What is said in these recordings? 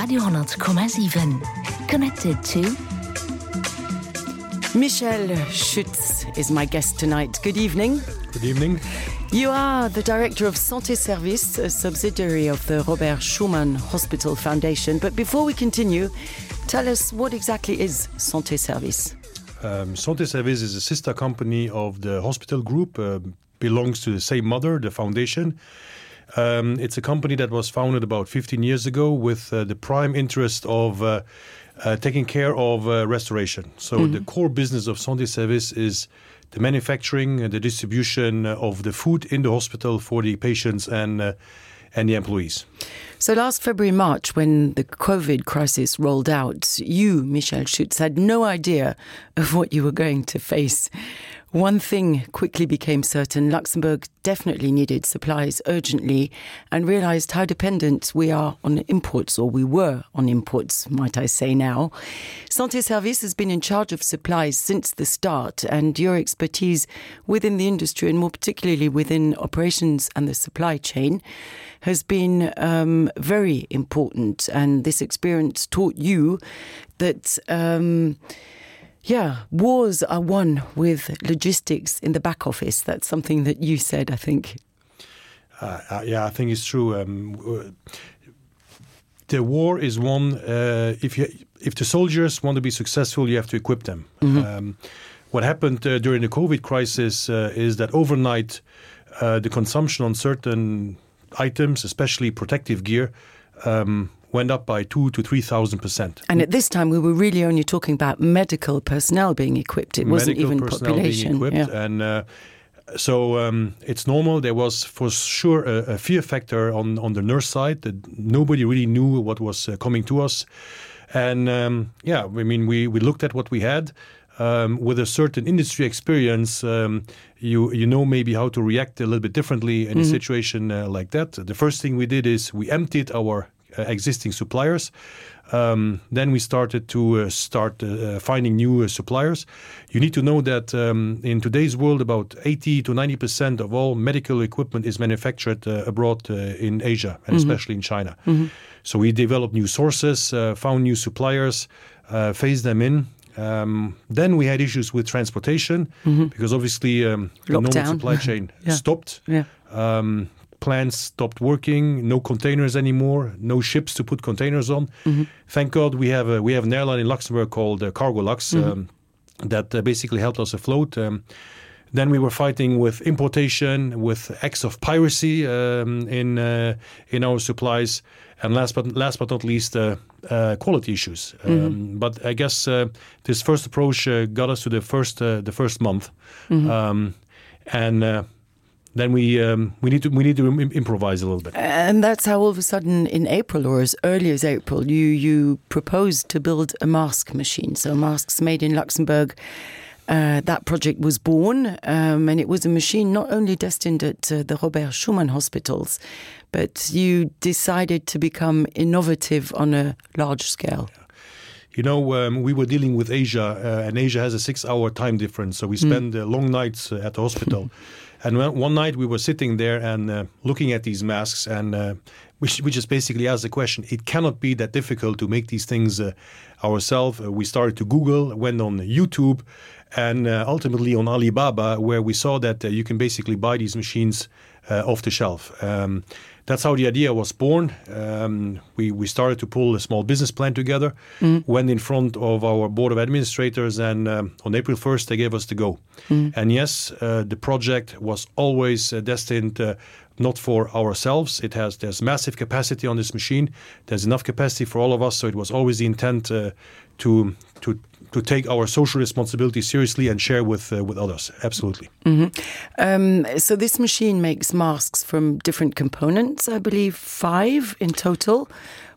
Radio 10,7. Connected to... Michel Schütz is my guest tonight. Good evening. Good evening. You are the director of Santé Service, a subsidiary of the Robert Schuman Hospital Foundation. But before we continue, tell us what exactly is Santé Service? Santé Service is a sister company of the hospital group, belongs to the same mother, the foundation. It's a company that was founded about 15 years ago with the prime interest of taking care of restoration. So the core business of Santé Service is the manufacturing and the distribution of the food in the hospital for the patients and the employees. So last February, March, when the COVID crisis rolled out, you, Michel Schütz, had no idea of what you were going to face. One thing quickly became certain: Luxembourg definitely needed supplies urgently and realized how dependent we are on imports, or we were on imports, might I say now. Santé Service has been in charge of supplies since the start, and your expertise within the industry, and more particularly within operations and the supply chain, has been very important. And this experience taught you that wars are won with logistics in the back office. That's something that you said, I think. I think it's true. The war is won. If the soldiers want to be successful, you have to equip them. Mm-hmm. What happened during the COVID crisis is that overnight, the consumption on certain items, especially protective gear, went up by 2,000 to 3,000%. And at this time, we were really only talking about medical personnel being equipped. It wasn't even population. Being equipped. Yeah. And so it's normal. There was for sure a fear factor on the nurse side that nobody really knew what was coming to us. And we looked at what we had. With a certain industry experience, you know maybe how to react a little bit differently in a situation like that. The first thing we did is we emptied our existing suppliers. Then we started to finding new suppliers. You need to know that in today's world, about 80 to 90% of all medical equipment is manufactured abroad in Asia, and especially in China. Mm-hmm. So we developed new sources, found new suppliers, phased them in. Then we had issues with transportation because obviously the normal supply chain stopped. Yeah. Plants stopped working, no containers anymore, no ships to put containers on. Mm-hmm. Thank God we have an airline in Luxembourg called Cargolux that basically helped us afloat. Then we were fighting with importation, with acts of piracy in our supplies, and last but not least, quality issues. But I guess this first approach got us to the first month, and then we need to improvise a little bit. And that's how all of a sudden in April, or as early as April, you proposed to build a mask machine. So masks made in Luxembourg. That project was born, and it was a machine not only destined at the Robert Schuman hospitals, but you decided to become innovative on a large scale. Yeah. You know, we were dealing with Asia, and Asia has a 6-hour time difference, so we spend long nights at the hospital. And one night we were sitting there and looking at these masks, and we just basically asked the question, it cannot be that difficult to make these things ourselves. We started to Google, went on YouTube, and ultimately on Alibaba, where we saw that you can basically buy these machines off the shelf. That's how the idea was born. We started to pull a small business plan together, went in front of our board of administrators, and on April 1st, they gave us the go. And yes, the project was always destined not for ourselves. There's massive capacity on this machine. There's enough capacity for all of us, so it was always the intent to take our social responsibility seriously and share with others. Absolutely. So this machine makes masks from different components, I believe 5 in total.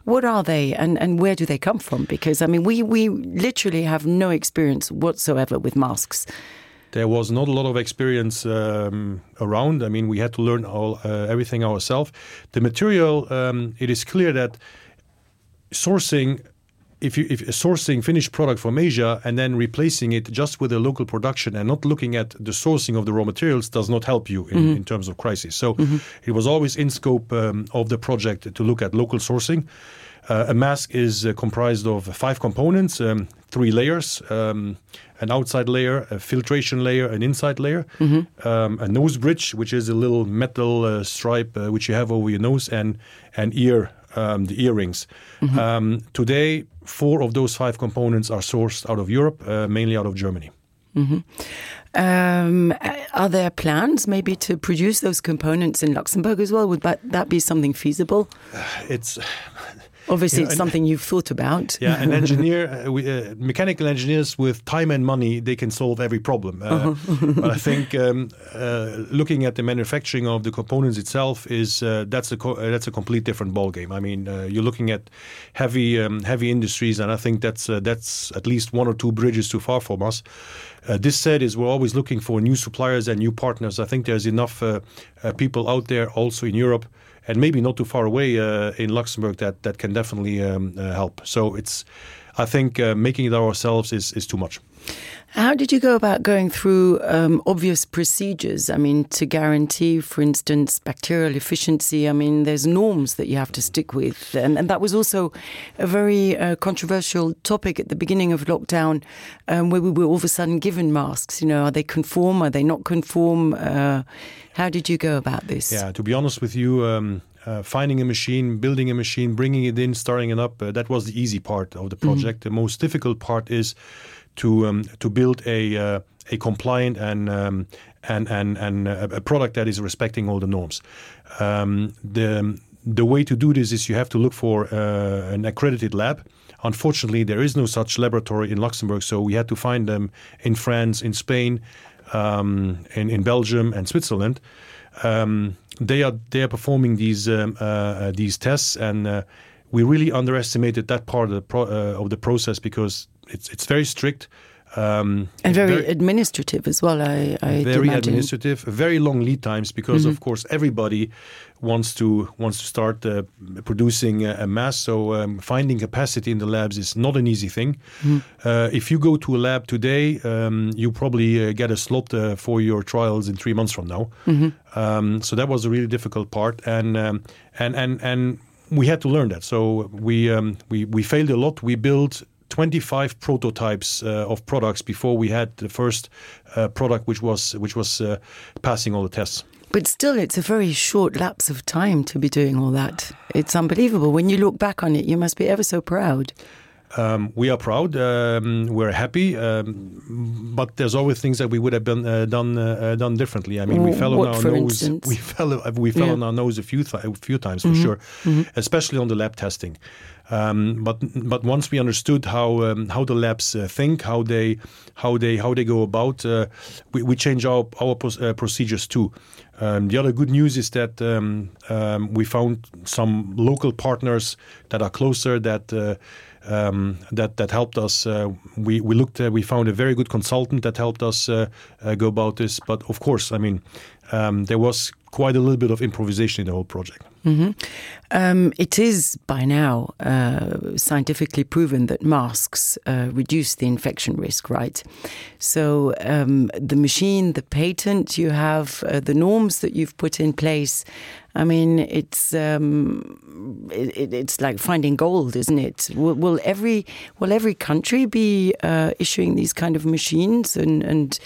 What are they, and where do they come from? Because, I mean, we literally have no experience whatsoever with masks. There was not a lot of experience around. I mean, we had to learn everything ourselves. The material, it is clear that sourcing if sourcing finished product from Asia and then replacing it just with a local production and not looking at the sourcing of the raw materials does not help you in terms of crisis. So it was always in scope of the project to look at local sourcing. A mask is comprised of 5 components, 3 layers, an outside layer, a filtration layer, an inside layer, a nose bridge, which is a little metal stripe which you have over your nose, and an ear, the earrings. Today, 4 of those 5 components are sourced out of Europe, mainly out of Germany. Are there plans maybe to produce those components in Luxembourg as well? Would that be something feasible? Obviously, it's something you've thought about. Yeah, an engineer, mechanical engineers with time and money, they can solve every problem. But I think looking at the manufacturing of the components itself that's a complete different ballgame. I mean, you're looking at heavy industries, and I think that's at least 1 or 2 bridges too far from us. This said, we're always looking for new suppliers and new partners. I think there's enough people out there, also in Europe, and maybe not too far away in Luxembourg that can definitely help. So I think making it ourselves is too much. How did you go about going through obvious procedures? I mean, to guarantee, for instance, bacterial efficiency. I mean, there's norms that you have to stick with. And that was also a very controversial topic at the beginning of lockdown, where we were all of a sudden given masks. Are they conform? Are they not conform? How did you go about this? Yeah, to be honest with you, finding a machine, building a machine, bringing it in, starting it up, that was the easy part of the project. The most difficult part is to build a compliant and a product that is respecting all the norms. The way to do this is you have to look for an accredited lab. Unfortunately, there is no such laboratory in Luxembourg, so we had to find them in France, in Spain, in Belgium and Switzerland. They are performing these tests, and we really underestimated that part of the process because it's very strict. And very administrative as well, I very imagine. Administrative, very long lead times because, of course, everybody wants to start producing a mask. So finding capacity in the labs is not an easy thing. If you go to a lab today, you probably get a slot for your trials in 3 months from now. So that was a really difficult part, and we had to learn that. So we failed a lot. We built 25 prototypes of products before we had the first product which was passing all the tests. But still, it's a very short lapse of time to be doing all that. It's unbelievable. When you look back on it, you must be ever so proud. We are proud. We're happy, but there's always things that we would have done differently. I mean, we fell on our nose. Instance? We fell on our nose a few times for sure, especially on the lab testing. But once we understood how the labs think, how they go about, we change our procedures too. The other good news is that we found some local partners that are closer that helped us. We found a very good consultant that helped us go about this. But of course, I mean, there was quite a little bit of improvisation in the whole project. It is by now scientifically proven that masks reduce the infection risk, right? So the machine, the patent you have, the norms that you've put in place, I mean, it's like finding gold, isn't it? Will every country be issuing these kind of machines and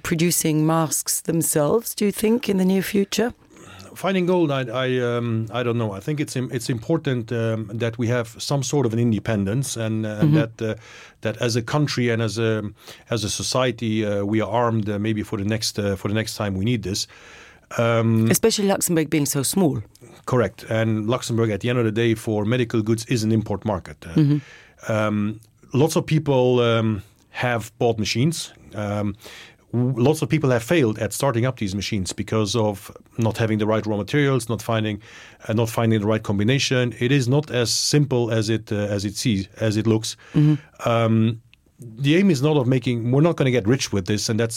producing masks themselves, do you think, in the near future? Finding gold, I don't know. I think it's important that we have some sort of an independence, and that as a country and as a society we are armed maybe for the next time we need this. Especially Luxembourg being so small. Correct, and Luxembourg at the end of the day for medical goods is an import market. Lots of people have bought machines. Lots of people have failed at starting up these machines because of not having the right raw materials, not finding the right combination. It is not as simple as it looks. The aim is not of making. We're not going to get rich with this, and that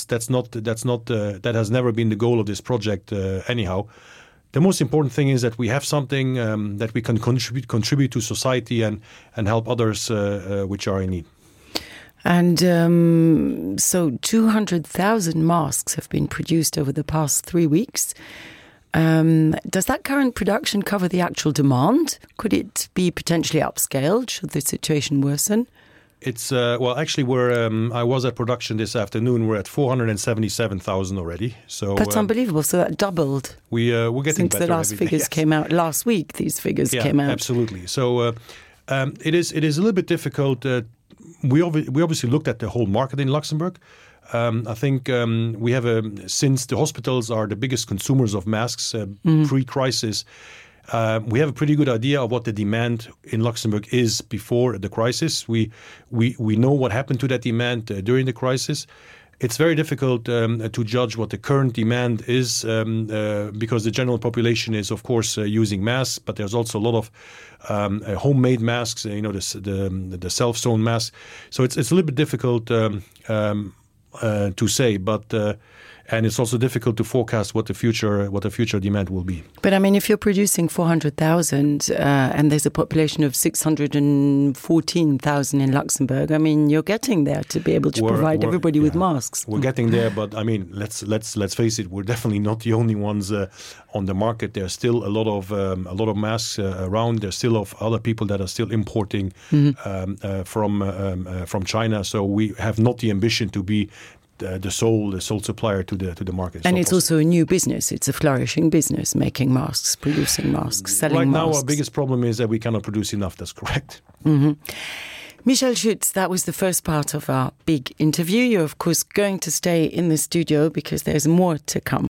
has never been the goal of this project anyhow. the most important thing is that we have something that we can contribute to society and help others which are in need. And so 200,000 masks have been produced over the past 3 weeks. Does that current production cover the actual demand? Could it be potentially upscaled should the situation worsen? It's well, actually, I was at production this afternoon. We're at 477,000 already. So that's unbelievable. So that doubled. We're getting since better the last figures came out last week. These figures came out. Absolutely. So it is a little bit difficult. We obviously looked at the whole market in Luxembourg. I think we have since the hospitals are the biggest consumers of masks pre-crisis. We have a pretty good idea of what the demand in Luxembourg is before the crisis. We know what happened to that demand during the crisis. It's very difficult to judge what the current demand is because the general population is, of course, using masks, but there's also a lot of homemade masks, the self-sewn masks. So it's a little bit difficult to say, but and it's also difficult to forecast what the future demand will be. But I mean, if you're producing 400,000 and there's a population of 614,000 in Luxembourg, I mean, you're getting there to be able to provide everybody with masks. We're getting there, but I mean, let's face it, we're definitely not the only ones on the market. There's still a lot of masks around. There's still other people that are still importing from China. So we have not the ambition to be the sole supplier to the market. And it's also a new business. It's a flourishing business, making masks, producing masks, selling masks. Right now, our biggest problem is that we cannot produce enough. That's correct. Mm-hmm. Michel Schütz, that was the first part of our big interview. You're, of course, going to stay in the studio because there's more to come.